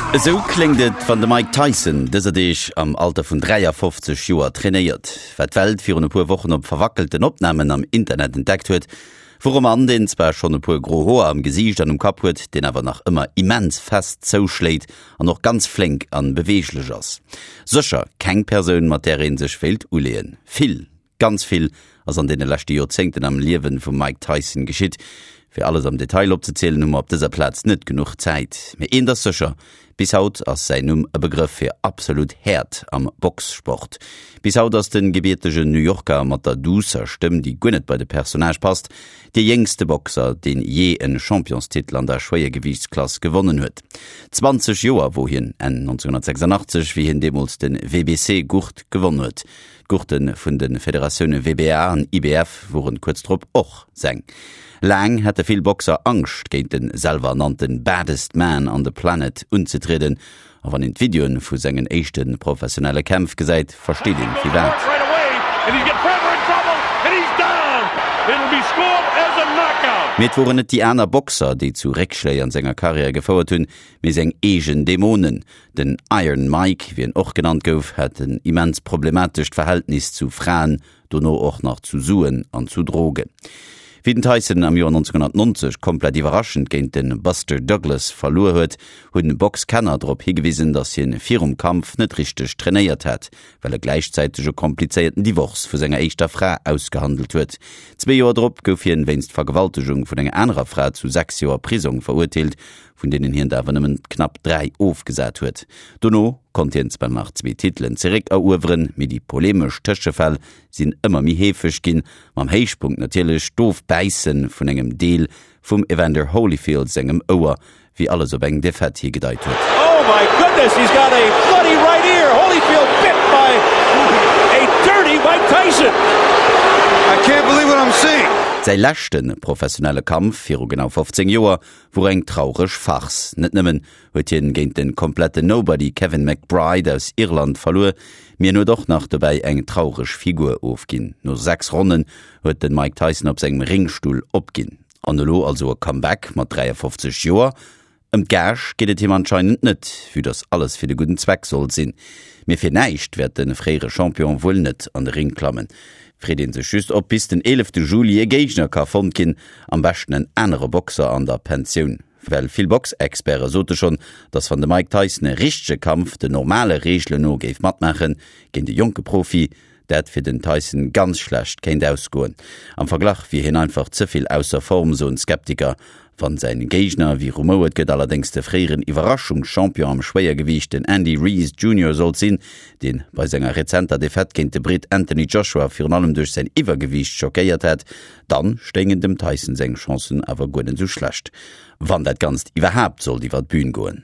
Esou kléngt et, wann de Mike Tyson dëser Deeg am Alter vun 53 Joer trainéiert. Wat d'Welt virun e puer Wochen op verwackelten Opnamen am Internet entdeckt huet, wor e Mann, deen zwar schonn e puer gro Hoer am Gesiicht an um Kapp huet, deen awer nach ëmmer immens fest zouschléit an och ganz flénk an beweeglech ass. Sécher keng Persoun, mat där ee sech wéilt uleeën. Vill Ganz vill ass an deene leschte Joerzéngten am Liewen vum Mike Tyson geschitt. Fir alles am Detail opzezielen hu mer op dëser Plaz net genuch Zäit. Mee eent ass sécher, bis haut ass säin Numm e Begrëff fir absolut Häert am Boxsport. Bis haut ass de gebiertegen New Yorker mat der duusser Stëmm, déi guer net bei de Personnage passt, dee jéngste Boxer, deen jee en Championstitel an der Schwéiergewiichtsklass gewonnen huet. 20 Joer wor hien Enn 1986, wéi hien deemools de WBC-Gurt gewonn huet. D'Gurte vun de Federatioune WBA an IBF woren kuerz drop och seng. Laang hätte vill Boxer Angscht géint de selwer-ernannte Baddest Man on the Planet unzetrieden, a wann een d'Videoen vu sengen éischte professionelle Kämpf gesäit, versteet een firwat. Mee et woren net déi aner Boxer, déi zu Réckschléi an senger Karriär gefouert hunn, mee seng eegen Dämonen. Den Iron Mike, wéi en och genannt gouf, hat en immens problematescht Verhältnis zu Fraen, dono och nach zu Suen an zu Drogen. Wéi den Tyson am Joer 1990 komplett iwwerraschend géint de Buster Douglas verluer huet, hunn Boxkenner drop higewisen, datt hien virum Kampf net richteg trainéiert hat, well e gläichzäiteg e komplizéierten Divorce vu senger éischter Fra ausgehandelt huet. Zwee Joer drop gouf hien wéinst Vergewaltegung vun enger anerer Fra zu 6 Joer Prisong verurteelt, vun deenen hien der awer nëmmen knapp 3 ofgesat huet. Dono konnt hien zwar nach zwee Titelen zeréck erueweren, mee déi polemesch Tëschefäll sinn ëmmer méi heefeg ginn, mam Héichpunkt natierlech d'Ofbäisse vun engem Deel vum Evander Holyfield sengem Ouer, wéi alles op eng Defaite higedeit huet. Oh my goodness, he's got a bloody right ear! Holyfield bit by a dirty Mike Tyson! I can't believe what I'm seeing! Säi leschte professionelle Kampf viru genau 15 Joer wor eng traureg Farce. Net nëmmen huet hien géint den kompletten Nobody Kevin McBride aus Irland verluer, mee en huet och nach dobäi eng traureg Figur ofginn. No 6 Ronnen huet den Mike Tyson op sengem Ringstull opginn. An elo also e Comeback mat 53 Joer? Ëm d'Gage geet et him anscheinend net, vue dass alles fir de gudden Zweck soll sinn. Mee fir näischt wäert de fréiere Champion wuel net an de Ring klammen. Freet een sech just, ob bis den 11 Juli e Géigner ka fonnt ginn, am beschten en anere Boxer an der Pensioun. Well vill Boxexperte sote schonn, dass wann de Mike Tyson e richtege Kampf den normale Reegelen no géif matmaachen, géint e jonke Profi, dat fir den Tyson ganz schlecht kéint ausgoen. Am Verglach wier hien einfach ze vill ausser Form, soen d'Skeptiker. Wann säin Géigner, wéi rumouert gëtt, allerdéngs de fréieren Iwwerraschungschampion am Schwéiergewiicht, den Andy Ruiz Junior sollt sinn, deen bei senger rezenter Defaite géint de Britt Anthony Joshua virun allem duerch säin Iwwergewiicht schockéiert hat, dann stéingen dem Tyson seng Chancen awer guer net esou schlecht. Wann dat Ganzt iwwerhaapt sollt iwwer d'Bühn goen.